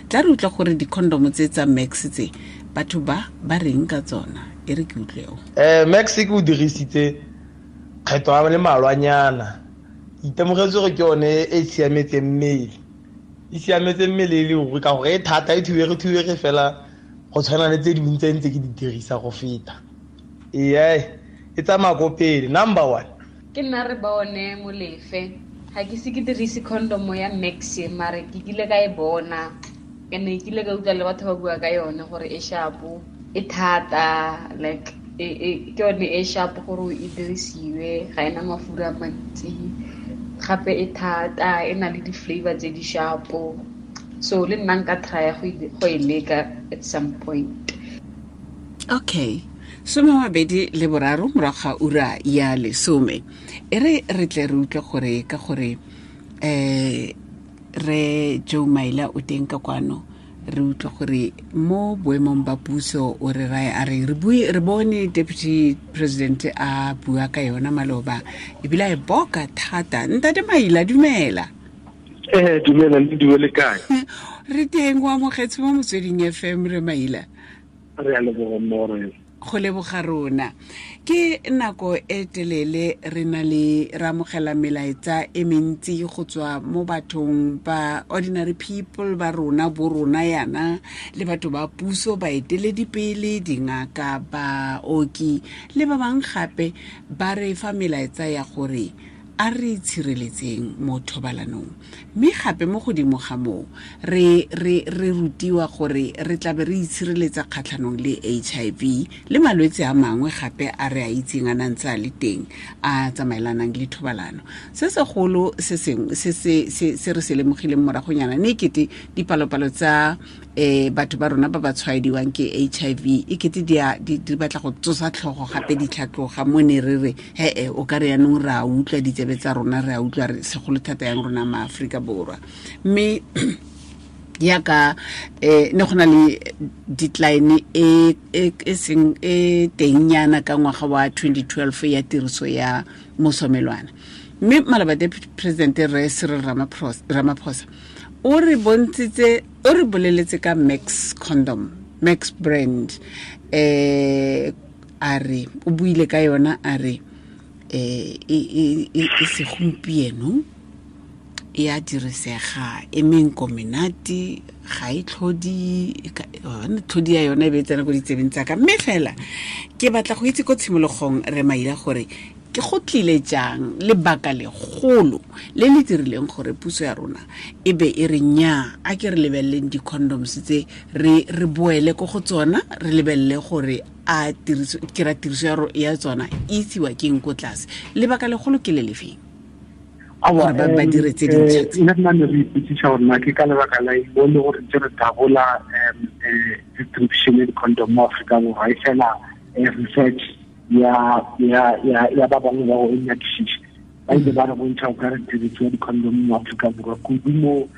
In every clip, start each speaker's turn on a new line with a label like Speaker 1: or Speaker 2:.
Speaker 1: Tla re utlwa gore di-condom tse tsa Max tse batho ba ba reng ka tsona. E re ke utlweo.
Speaker 2: Max ke o dirisitse kgetho a le malwanyana. Itemogetse gore ke yone e siametseng mmele. E siametse mmele e le ruri ka gore e thata, e thubege fela go tshwana le tse dingwe tse ntse ke di dirisa go feta. Ee, e tsamaya ko pele, number 1.
Speaker 3: Ke nna re bone Molefe. Ga ke se ke dirise condom ya Max, mare ke kile ka e bona. Ene ke kile ka utlwa le batho ba bua ka yone gore e sharp, e thata, like ke yone e sharp gore e dirisiwe, ga ena mafura a mantsi. Gape e thata, e na le di-flavor tse di sharp. So le nna nka try go e leka at some point.
Speaker 1: Okay. 23 morago ga ura ya 10. E re re tle re utlwe gore ka gore re Joe Maila o teng ka kwano, re utlwe gore mo boemong ba puso o re rae a re re bone Deputy President a bua ka yona maloba ebile a e boka thata. Ntate Maila, dumela.
Speaker 4: Dumela le dumele kae?
Speaker 1: Re teng, o amogetse mo Motsweding FM re Maila.
Speaker 4: Re a leboga mmogo.
Speaker 1: Go leboga rona. Ke nako e telele re na le re amogela melaetsa e mentsi go tswa mo bathong ba ordinary people ba rona, bo rona yana, le batho ba puso, baeteledipele, dingaka, baoki le ba bangwe gape ba re fa melaetsa ya gore a re tshireletseng mo thobalanong. Mme gape mo godimo ga moo re rutiwa gore re tlabe re itshireletsa kgatlhanong le HIV le malwetse a mangwe gape a re a itseng a nang tse a le teng a tsamaelanang le thobalano. Se segolo se sengwe se re se lemogileng moragonyana ne kete dipalopalo tsa batho ba rona ba ba tshwaediwang ke HIV e kete di batla go tsosa tlhogo gape di tlhatloga mo ne re re he o ka re yanong re a utlwa ditsebe tsa rona, re a utlwa re segolo thata yang rona ma Afrika Borwa. Mme yaka ne go na le decline e seng e tengnyana ka ngwaga wa 2012 ya tiriso ya mosomelwana. Mme maloba Deputy President re Cyril Ramaphosa o re bontshitse, o re boleletse ka Max condom, Max brand, a re o buile ka yona a re e segompieno e a dirisega, e menko menate, ga e tlhodi, tlhodi ya yona e be e tsena ko ditsebeng tsa ka. Mme fela ke batla go itse ko tshimologong re Maila gore ke go tlile jang lebaka legolo le le dirileng gore puso ya rona e be e re nya a ke re lebeleleng di-condoms tse re boele ko go tsona, re lebelele gore a tiriso ke ra tiriso ya tsona e isiwa keng ko tlase. Lebaka legolo ke le lefeng gore ba dire tse dintšha tse?
Speaker 4: Nna ne re ipotsisa gore na ke ka lebaka la eng le gore ntse re dabola distribution ya di-condom mo Aforika Borwa, e fela research ya ba bangwe ba go nyakišiša ba ile ba re bontšha go ka re tiriso ya di-condom mo Aforika Borwa kudu mo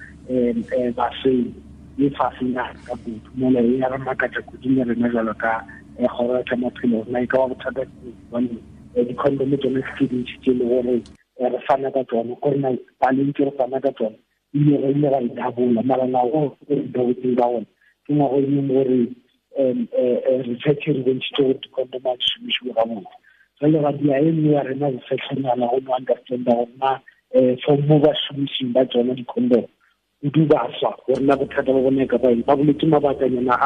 Speaker 4: baseng e fasenyana ka kudu mola e ya re makatša kudu le rena jalo ka kgoro ya tsa maphelo. Rena e ka ba bothata gobane di-condom tsone ke tse dintši tse e le gore re fana ka tsone, gore na paleng tse re fana ka tsone ebile re ile ra e dabola, mara ngwago re dabotseng ka gona ke ngwago e leng gore research re bontšhitse gore di-condom a di šomišiwe gabotse. Jale ra dia e nngwe ya rena researchnyana go no understanda gore na for mo ba šomišing ba tsona di-condom kudu baswa gore na bothata ba bone ka ba eng. Ba boletse mabakanyana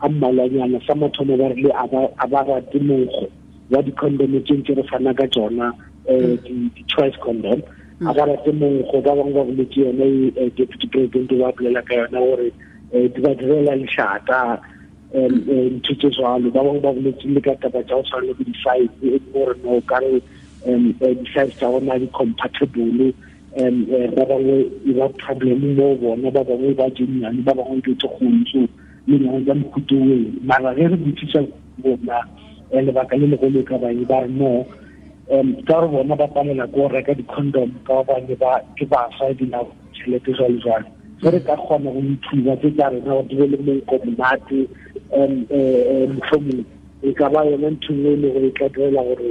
Speaker 4: a mmalwanyana. Sa mathomo ba rile a ba rate monkgo wa di-condom tse ntse re fana ka tsona, di-choice condom, a ba rate monkgo. Ba bangwe ba boletse yone Deputy President ba bolela ka yona gore di ba direla lešata, ntho tse jwalo. Ba bangwe ba boletse le ka taba tsa go tshwana le bo di-size, e gore no ka re di-size tsa bona di compatible, ba bangwe e ba problem mo bona, ba bangwe ba jennyane, ba bangwe ke tse kgolo, so le nyane tsa mohuto oo. Mara ge re botsisa bona lebaka le legolo e ka bang ba re no ka gore bona ba palela ko reka di-condom ka gobane ba ke baswa ebile tšhelete jwalo jwalo. Ge re ka kgona go ithuba tse tsa rena gore di be le monko monate, mohlomong e ka ba yona ntho nngwe e le gore e tla direla gore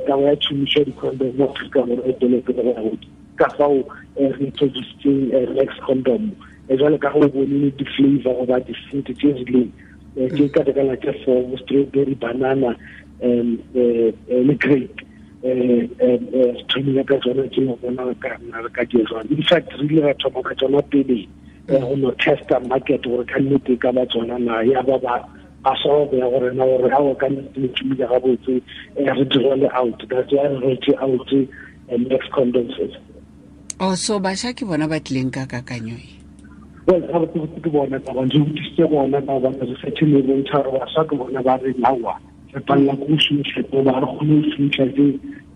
Speaker 4: taba ya tšhomišo ya di-condom mo Afrika Borwa e tswele pele go ya godimo. Ka fao re introducetseng Max condom. Jwale ka go bone di-flavor goba di-fruit tse rileng tse ka tekana tse four, strawberry, banana, le grape. Re thomile ka tsona tse go bona ka nna re ka di jwang. In fact, re ile ra thoma ka tsona pele go no testa market gore ka nnete ka ba tsona na ya ba ba solve ya gore na gore ha o ka nnete le tšhumile gabotse, re di roll out. That's why re roll out Max condoms.
Speaker 1: Oh, so bašwa ke bona ba tlileng ka kakanyo e?
Speaker 4: Well, gabotse ke bona ba bantsi go thusitse bona ba ba research e bontšha gore bašwa ke bona ba re nawa re palela ko go šomiša ba re kgone go šomiša tse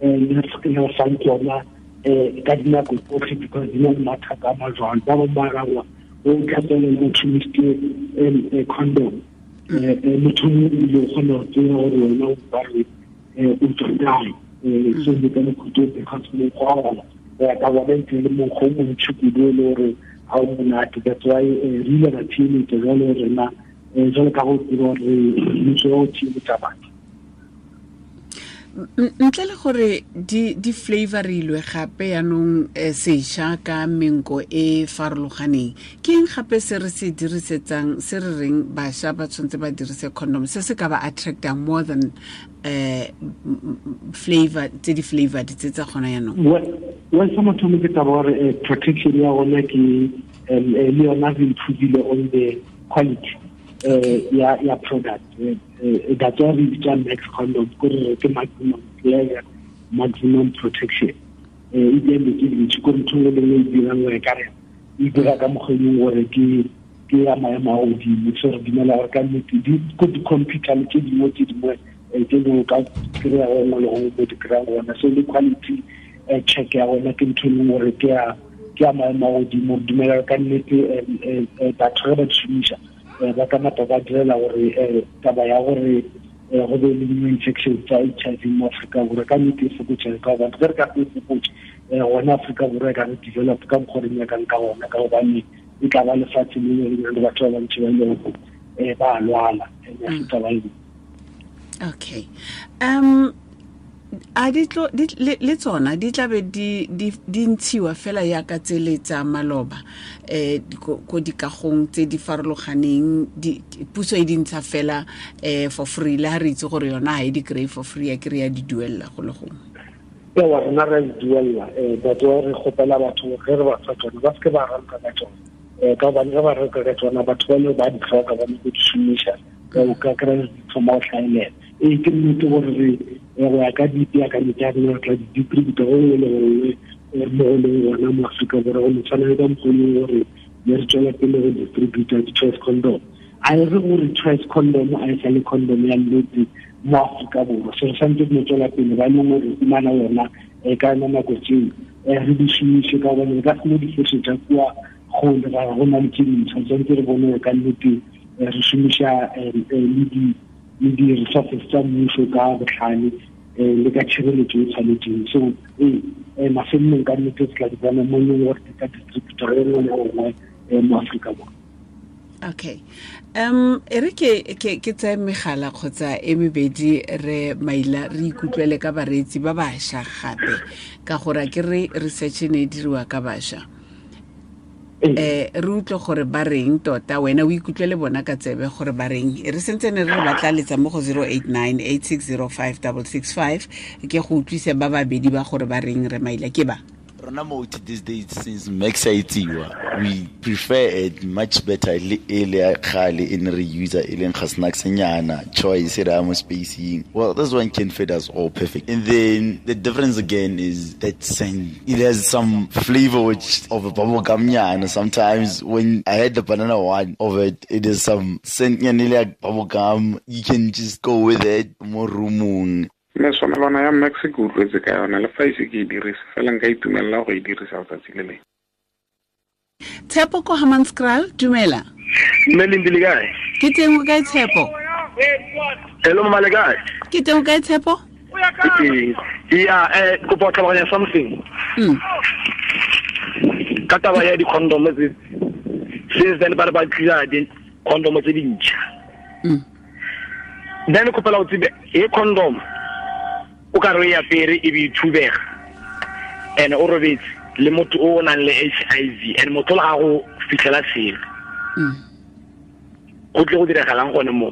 Speaker 4: le fang tsona ka dinako tsotlhe because di na le mathata a majwalo. Ba bangwe ba rangwa o tlhatsele motho šomisitse condom, motho mongwe ebile o kgona go tseba gore wena o ba re o tswa kae. So le ka mokhutso because mokgwa wa gona go ya ka bona ntse le mokgwa o montšhi kudu e le gore ga o monate. That's why re ile ra theeletša jalo rena, jalo ka go tseba gore mmuso wa go theeletša batho.
Speaker 1: Ntle le gore di flavorilwe gape yaanong sešwa ka menko e farologaneng, ke eng gape se re se dirisetsang se re reng bašwa ba tshwanetse ba dirise condom se se ka ba attractang more than flavor tse di flavored tse tsa gona yaanong?
Speaker 4: Well, sa mathomo ke taba gore protection ya gona ke le yona re improvile on the quality ya product. That's why re bitsa Max condom, gore ke maximum pleasure, maximum protection. E bile ke dintsi ko ntho le nngwe e dirang gore ka re e dira ka mokgwa e leng gore ke ya maemo a godimo. So re dumela gore ka nnete ko di-computer le tse dingwe tse dingwe ka kry-a gongwe le gongwe mo di kry-ang gona. So le quality check ya gona ke ntho e leng gore ke ya maemo a godimo. Re dumela gore ka nnete batho ge ba di šomiša ba ka napa ba direla gore taba ya gore go be le new infection tsa HIV mo Afrika Borwa ka nnete e fokotsege, ka gobane ge re ka se e fokotse gona Afrika Borwa e ka re develop ka mokgwa re nyakang ka gona, ka gobane e tla ba lefatshe le le nang le batho ba bantši ba e leng gore ba lwala and ya se taba e.
Speaker 1: Okay. A di tlo le tsona di tla be di ntshiwa fela yaka tsele tsa maloba ko dikagong tse di farologaneng, puso e di ntsha fela for free, le ha re itse gore yona ha e di kry for free, ya kry ya di duella go le gongwe?
Speaker 4: Ewa, rena re a di duella. Batho re kgopela batho ge re ba fa tsona ba seke ba reka ka tsona, ka gobane ge ba reka ka tsona batho ba le ba di tlhoka ba nyako di šomiša, o ka kry di thoma go hlaelela. Ee, ke nnete gore re go ya ka dipeakanyo tsa rena re tla di distributa go nngwe le gongwe mo go leng gona mo Afrika Borwa, go no tshwana le ka mokgwa e leng gore ne re tswela pele go distributa di-choice condom. A e re gore choice condom a e sa le condom ya nnete mo Afrika Borwa, so re santse re no tswela pele ba e leng gore fumana yona ka yona nako tseo re di šomiše, ka gobane re ka se no di fošetša kua kgole ra go na le tse dintšha. Tshwanetse re bone gore ka nnete re šomiša le di-resources tsa mmuso ka botlhale le ka tshireletso e tshwanetseng. So ee, mafelelong ka nnete re tla di bona mo e leng gore di ka distributor e nngwe le nngwe mo Afrika Borwa.
Speaker 1: Okay. E re ke tseye megala kgotsa e mebedi re maila re ikutlwele ka bareetsi ba bašwa gape, ka gore ke re research e ne e diriwa ka bašwa. Re utlwe gore ba reng tota, wena o ikutlwele bona ka tsebe gore ba reng. E re sentse ne re re batla letsa mo go 089 8605 665 ke go utlwise ba babedi ba gore ba reng re maila ke ba.
Speaker 5: Rona mo these days since Max a itsiwa, we prefer it much better le e le kgale e ne re user e leng ga snacks nyana choice re mo spacing. Well, this one can fit us all perfect. And then the difference again is that scent. It has some flavor which of a bubble gum nyana. Sometimes when I had the banana one of it, it is some scent nyana like bubble gum. You can just go with it more roomong.
Speaker 6: Meswamelwana ya Max ke utlwetse ka yona, le fa ise ke e dirise fela nka itumelela go e dirisa letsatsi le lengwe.
Speaker 1: Tshepo ko Hammanskraal, dumela.
Speaker 7: Mme Lindi le kae?
Speaker 1: Ke teng, o kae Tshepo?
Speaker 7: Hello mama, le kae?
Speaker 1: Ke teng, o kae Tshepo?
Speaker 7: Ke teng. Ya, kopa go tlhaloganya something. Ka taba ya di-condom tse, since then ba re ba tlisa di-condom tse dintšha. Then kopela go tsebe e condom o ka re e apere e be e thubega, and o robetse le motho o nang le HIV, and motho le ga go fitlhela selo. Go tle go diragalang gone mo?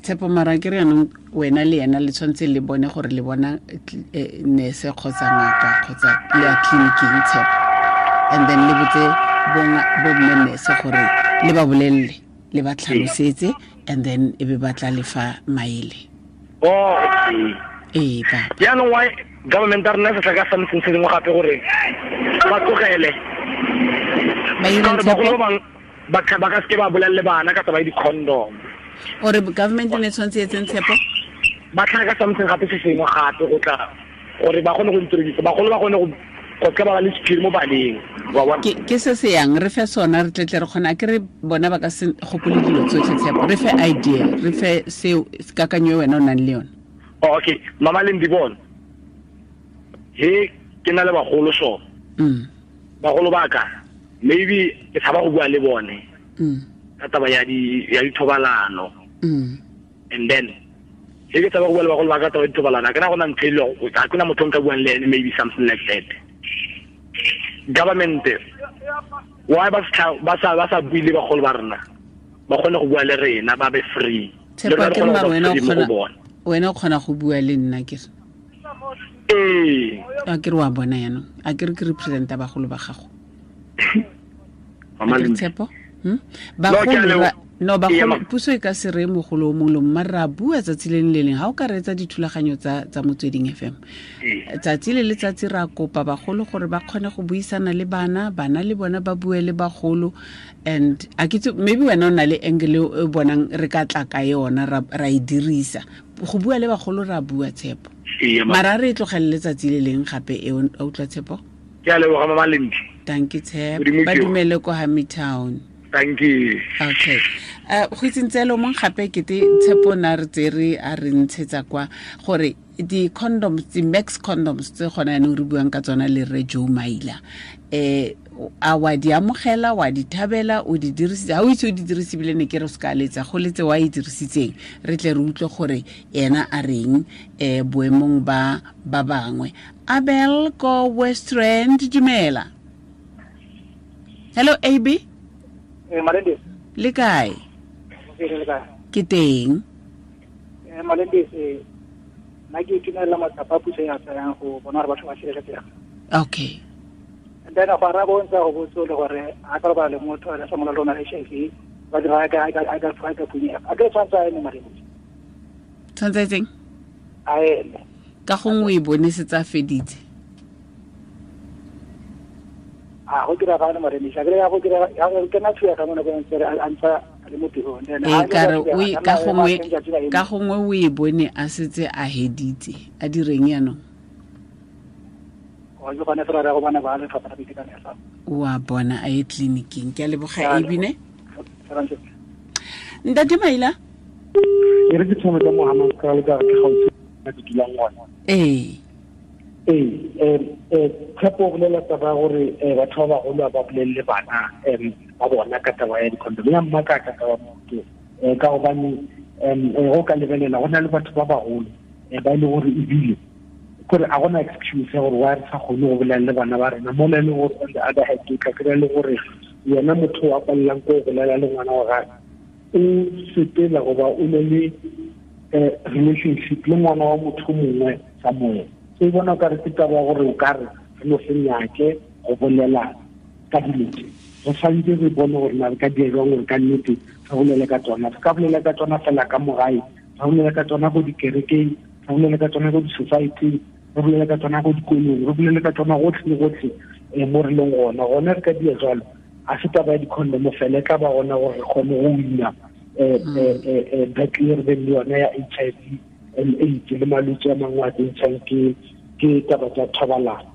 Speaker 1: Tshepo, mara ke re yanong wena le ena le tshwanetse le bone gore le bona nurse kgotsa ngaka kgotsa le ya tleliniking, Tshepo, and then le botse bomme nurse gore le ba bolelele, le ba tlhalosetse, and then e be ba tla lefa maele.
Speaker 7: Oh, okay.
Speaker 1: Ee, papa.
Speaker 7: Jaanong why government a rena se tla ka something se dingwe gape gore ba tlogele?
Speaker 1: Ba ireng,
Speaker 7: Tshepo?
Speaker 1: Tshepo?
Speaker 7: Ba ka seke ba bolelele bana ka taba ya di-condom.
Speaker 1: Ore government ne tshwanetse e etseng, Tshepo?
Speaker 7: Ba tlhaga ka something gape se sengwe gape go tla gore ba kgone go introduce, bagolo ba kgone go seka ba ba le sephiri mo baneng, wa bona?
Speaker 1: Ke se se yang re fe sona, re tletle re kgona ke re bona ba ka se gopole dilo tsotlhe, Tshepo. Re fe idea, re fe seo kakanyo e wena o nang le yone.
Speaker 7: Oh, okay, mama le ndibone he ke na le bagolo so bagolo ba ka maybe ke tshaba go bua le bone ka taba ya di ya dithobalano. And then he ke tshaba go bua le bagolo ba ka taba ya dithobalano, a ke na go na ntho e le ga ke na motho o nka buang le ene, maybe something like that. Government why ba sa bue le bagolo ba rena, ba kgone go bua le rena, ba be free.
Speaker 1: Tshepo,
Speaker 7: Le rona re
Speaker 1: ke
Speaker 7: kgone
Speaker 1: mara
Speaker 7: go ba
Speaker 1: wena o
Speaker 7: free mo go
Speaker 1: kgona
Speaker 7: bona.
Speaker 1: Wena o kgona go bua le nna ke re.
Speaker 7: Ee.
Speaker 1: A ke re wa bona yaanong, a ke re ke representa bagolo ba gago.
Speaker 7: Mama
Speaker 1: A ke re
Speaker 7: Lindy.
Speaker 1: Tshepo?
Speaker 7: No, ke a
Speaker 1: Bagolo
Speaker 7: leboha.
Speaker 1: no,
Speaker 7: Ee,
Speaker 1: bagolo,
Speaker 7: ma-
Speaker 1: puso e ka se reye mogolo o mongwe le mongwe, mare ra bua tsatsi le le leng. Ha o ka reetsa dithulaganyo tsa Motsweding FM,
Speaker 7: Ee.
Speaker 1: tsatsi le letsatsi ra kopa bagolo gore ba kgone go buisana le bana, bana le bona ba bue le bagolo. And a ke itse, maybe wena o na le angle e o bonang re ka tla ka yona ra e dirisa go bua le bagolo, ra bua, Tshepo.
Speaker 7: Ee, ma-
Speaker 1: Mara re e tlogelele tsatsi le leng gape e, o utlwa, Tshepo?
Speaker 7: Ke a leboga, mama Lindy.
Speaker 1: Thank you, Tshepo.
Speaker 7: Modimo
Speaker 1: Ba
Speaker 7: ke yo.
Speaker 1: dumele ko Hamitown.
Speaker 7: Thank you.
Speaker 1: Okay. Go itseng tselo mong gape kete Tshepo na re tsere a re ntshetsa kwa gore di-condoms, di-max condoms tse gona yanong re buang ka tsona le rre Joe Maila, a wa di amogela, wa di thabela, o di dirisitse? Ha o itse o di dirise ebile ne ke re o se ka letsa go letse wa e dirisitseng, re tle re utlwe gore ena a reng boemong ba ba bangwe. Abel ko Westrand, dumela. Hello, AB.
Speaker 8: Malendis.
Speaker 1: Le kae?
Speaker 8: Ke le kae?
Speaker 1: Ke teng.
Speaker 8: Malendis, nna ke itumelela matsapa a puso ya tsayang go bona gore batho ba sireletsega.
Speaker 1: Okay.
Speaker 8: And then go araba o ntse a go botse le gore a ka robala le motho a sa mola lona HIV, ba dira a ka phunyega. A ke tshwanetse a eme, Malendis.
Speaker 1: Tshwanetse a etseng?
Speaker 8: A eme.
Speaker 1: Ka gongwe o e bone setse a feditse.
Speaker 8: A go diragale, Malendis. A ke ya go dira ya go kena thuya ka mo nakong ntse a ntsa le mo tirong. Then
Speaker 1: Ee,
Speaker 8: ha
Speaker 1: ka re
Speaker 8: le
Speaker 1: o e-
Speaker 8: ka
Speaker 1: ka
Speaker 8: nna
Speaker 1: gongwe
Speaker 8: ema teng tsatsi la eme.
Speaker 1: Ka gongwe o e bone a setse a heditse, a direng yanong?
Speaker 8: O ke gone fela re go bona ba lefapha la boitekanelo.
Speaker 1: Wa bona a ye tleliniking. Ke a leboga,
Speaker 8: Ke a
Speaker 1: Abine.
Speaker 8: Fela ntse.
Speaker 1: Ntate Maila.
Speaker 4: E re ke thome ka mo Hammanskraal ka re ke gaufi le ke dulang gona.
Speaker 1: Ee.
Speaker 4: Ee, Tshepo o bolela taba ya gore batho ba bagolo ba bolelele bana ba bona ka taba ya di-condom. Ya mmakaka taba motho, ka gobane go ka lebelela go na le batho ba bagolo ba e le gore ebile kore a gona excuse ya gore wa re sa kgone go bolela le bana ba rena mola e le gore on the other hand o tla kry-a le gore yena motho wa palelang ko go bolela le ngwana wa gagwe o sepela goba o ne le relationship le ngwana wa motho mongwe somewhere. So e bona o kare ke taba ya gore o kare re no se nyake go bolela ka dilo tse, re tshwanetse re bone gore na re ka dira jwang gore ka nnete re bolele ka tsona. Re ka bolela ka tsona fela ka mo gae, re bolela ka tsona ko dikerekeng, re bolela ka tsona ko di-society-ing, re bolela ka tsona ko dikolong, re bolela ka tsona gotlhe le gotlhe mo re leng gona. Gona re ka dia jalo, a se taba ya di-condom fela, e tla ba gona gore re kgone go wina battle e re beng le yona ya HIV and AIDS le malwetse a mangwe a tsentshang ke taba tsa thobalano.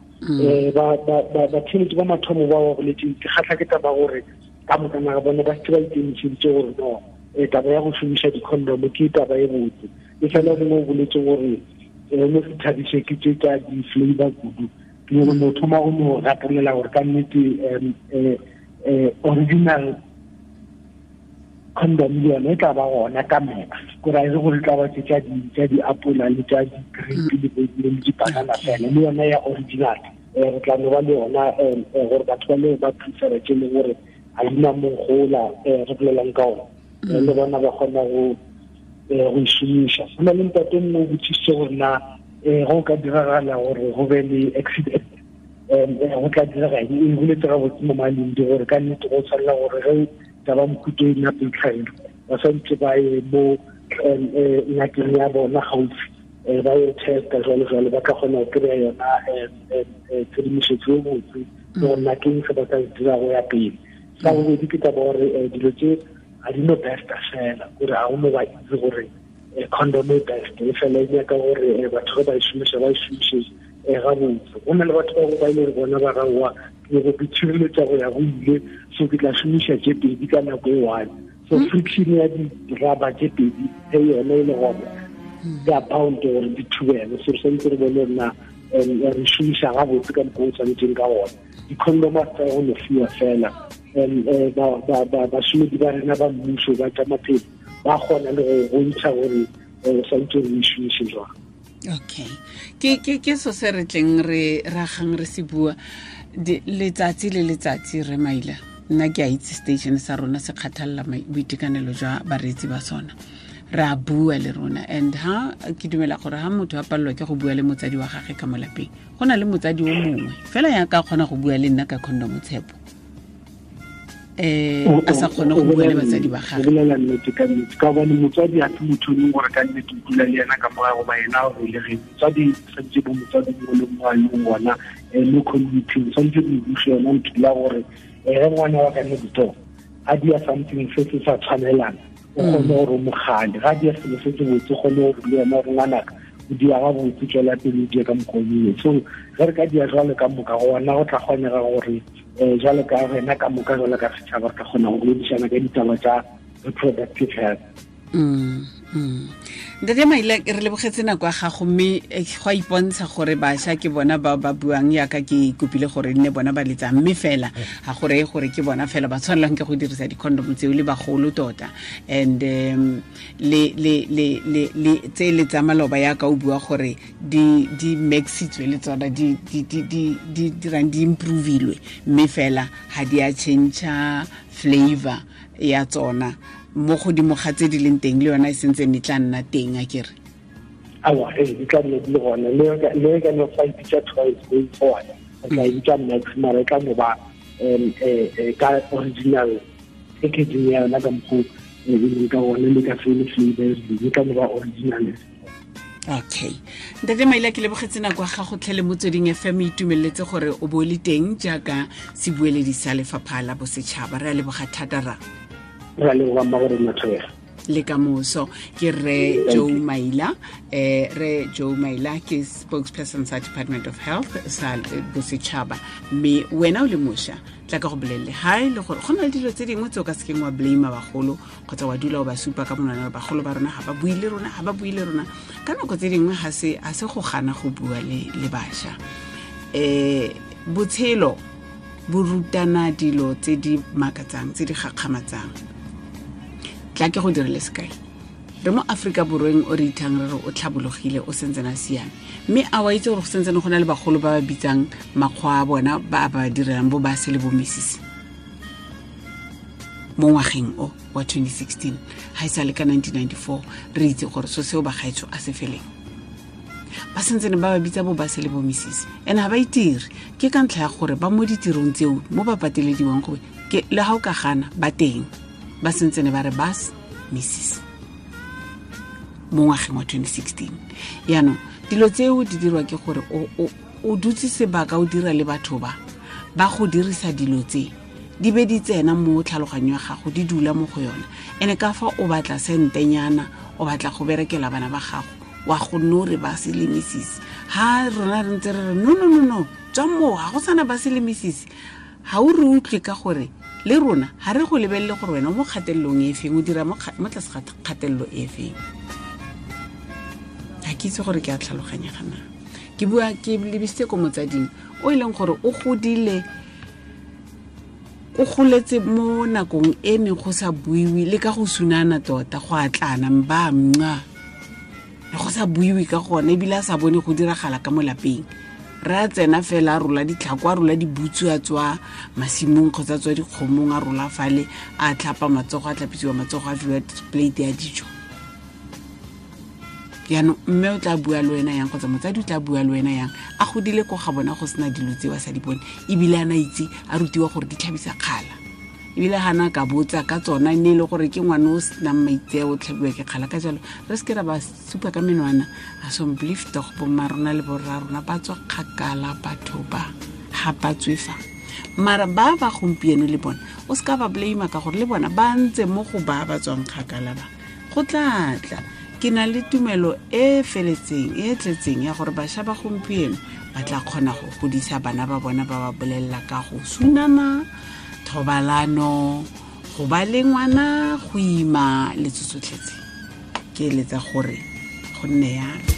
Speaker 4: Batheletši ba mathomo ba ba boletseng, ke kgatlha ke taba gore ka moka naga bone ba setse ba ikemišeditše gore no taba ya go šomiša di-condom ke taba e botse. E fela mongwe o boletse gore no se thabiše ke tše tša di-flavor kudu, ke nyako no thoma go no gatelela gore ka nnete original condom le yone e tla ba gona ka max, kore a e re gore e tla ba tse tša di-apola le tša di-grape le di-banana fela, le yone ya original Re tla no ba le yona gore batho ba le ba prefera tše leng gore ga di na mogola re bolelang ka ona, le bona ba kgona go e šomiša. Go na le ntate mongwe o botsisitse gore na go ka diragala gore go be le accident, go tla direga eng. E boletse gabotse mo maleng di gore ka nnete go tshwanela gore ge taba mohuto e nna peitlhaelo ba swantse ba ye mo ngakeng ya bona gaufi, ba ye testa jalo jalo, ba tla kgona go kry-a yona tshedimosetso e botse le gore na ke eng se ba ka se dira go ya pele. Sa bobedi ke taba gore dilo tse ga di no besta fela, kore ga go no ba itse gore condom e best, e fela e nyaka gore batho ge ba e šomiša ba e šomiše gabotse. Go na le batho ba ba ile bona ba raowa ke go tshireletsa go ya go ile, so ke tla šomiša tše pedi ka nako e one. So friction ya di-rubber tše pedi ge yona e le gona di a bound gore di thubele. So re santse re bone rena re šomiša gabotse ka mokgwa o tshwanetseng ka gona. Di-condom a tsa go no fiwa fela, bašomedi ba rena ba mmuso ba tša maphelo ba kgona le go bontšha gore o santse re e šomiše jwang.
Speaker 1: Okay, ke so se re tleng re ragang re se bua letsatsi le letsatsi. Re Maila, nna ke a itse station sa rona se kgathalela boitekanelo jwa bareetsi ba sona, re a bua le rona. And ha ke dumela gore ha motho a palelwa ke go bua le motsadi wa gagwe ka mo lapeng, go na le motsadi o mongwe fela ya ka kgona go bua le nna ka condom, Tshepo, a sa kgone go bua le batsadi ba gagwe.
Speaker 4: O bolela nnete ka nnete, ka gobane motswadi a se motho o leng gore ka nnete o dula le yena ka morago goba yena o belegeng. Motswadi santse bo motswadi mongwe le mongwe a leng gona mo community-ing, santse bo buše yona ntho la gore ge ngwana wa ka next door a dia something se se sa tshwanelang, o kgone gore o mogale. Ga dia selo se se botse, o kgone gore le yena gore ngwanaka o dia gabotse, tswela pele o die ka mokgwa o mongwe. So ge re ka dia jwalo ka moka gona go tla kgonega gore jwalo ka rena ka moka jwalo ka setšhaba re ka kgona go boledišana ka ditaba tša reproductive health.
Speaker 1: Ntate Maila, re lebogetse nako ya gago, mme go a ipontsha gore bašwa ke bona ba ba buang yaka ke kopile gore nne bona ba letsang, mme fela ga go reye gore ke bona fela ba tshwanelang ke go dirisa di-condom tseo, le bagolo tota. And le le le le le tse le tsa maloba yaka o bua gore di maxitswe le tsona di di di di di dirang di improvilwe, mme fela ga di a change flavor ya tsona mo godimo ga tse di leng teng, le yona e sentse e tla nna teng, a kere?
Speaker 4: Aowa, ee, di tla nna di le gona. Le ka no fa e bitsa twice going forward, re tla e bitsa max, mara e tla no ba ka original packaging ya yona ka mokgwa e leng ka gona, le ka se le flavor e tla no ba original.
Speaker 1: Okay, Ntate Maila, ke lebogetse nako ya gago tlhe le Motsweding FM, itumeletse gore o bo le teng jaaka sebueledi sa lefapha la bosetšhaba. Re a leboga thata ra.
Speaker 4: Re a leboga mma gore nna thobega.
Speaker 1: Le ka moso. Ke re Joe Maila, re Joe Maila ke spokesperson sa Department of Health sa bosetšhaba. Mme wena o le mošwa, tla ka go bolelele ha e le gore go na le dilo tse dingwe tse o ka sekeng wa blame bagolo kgotsa wa dula o ba supa ka monwana, bagolo ba rona ga ba bue le rona, ga ba bue le rona. Ka nako tse dingwe ga se go gana go bua le bašwa. Botshelo bo rutana dilo tse di makatsang, tse di gakgamatsang. Tla ke go direle sekai. Re mo Aforika Borweng o re ithang re re o tlhabologile, o sentsene a siame, mme a wa itse gore go sentsene go na le bagolo ba ba bitsang makgwa a bona ba ba direlang bo ba se le bo misisi mo ngwageng o wa 2016. Ga e sa le ka 1994 re itse gore so seo bagaetsho a se feleng, ba sentsene ba ba bitsa bo ba se le bo misisi, and ga ba itire ke ka ntlha ya gore ba mo ditirong tseo mo ba patelediwang gore ke le ga o ka gana ba teng, ba sentsene ba re bas misisi mo ngwageng wa 2016. Yaanong dilo tseo di dirwa ke gore o dutse sebaka o dira le batho ba ba go dirisa dilo tse di be di tsena mo tlhaloganyo ya gago, di dula mo go yona. Ene ka fa o batla sentenyana, o batla go berekela bana ba gago, wa go no re ba se le misisi. Ha rona re ntse re re no no no no, tswa moo, ga go sana ba se le misisi. Ha o re utlwe ka gore le rona ha re go lebelele gore wena mo kgatelelong e feng, o dira mo tlase ga kgatelelo e feng. Ga ke itse gore ke a tlhaloganya gana. Ke bua ke lebisitse ko motsading o e leng gore o godile, o goletse mo nakong e neng go sa buiwe le ka go sunana tota, go atlana mba mnca, le go sa buiwe ka gone, ebile a sa bone go diragala ka mo lapeng. Re a tsena fela a rola ditlhako, a rola dibutsu, a tswa masimong kgotsa a tswa dikgomong, a rola fale, a tlhapa matsogo, a tlhapisiwa matsogo, a fiwa plate ya dijo. Jaanong mme o tla bua le wena yang, kgotsa motsadi o tla bua le wena yang, a godile ko ga bona go sena dilo tse ba sa di bone, ebile a na itse a rutiwa gore di tlhabisa kgala, ebile ga na ka botsa ka tsona e ne e le gore ke ngwane o senang maitseo, o tlhabiwa ke kgala. Ka jalo re seke ra ba supa ka menwana. A somblief tog bomma rona le borra rona ba tswa kgakala, batho ba ga ba tswe fa. Mara ba ba gompieno le bona o se ka ba blame, ka gore le bona ba ntse mo go ba ba tswang kgakala ba. Go tla tla, ke na le tumelo e feletseng e tletseng ya gore bašwa ba gompieno ba tla kgona go godisa bana ba bona, ba ba bolelela ka go sunana, thobalano, go ba le ngwana, go ima le tsotsotlhetse. Ke eletsa gore go nne yalo.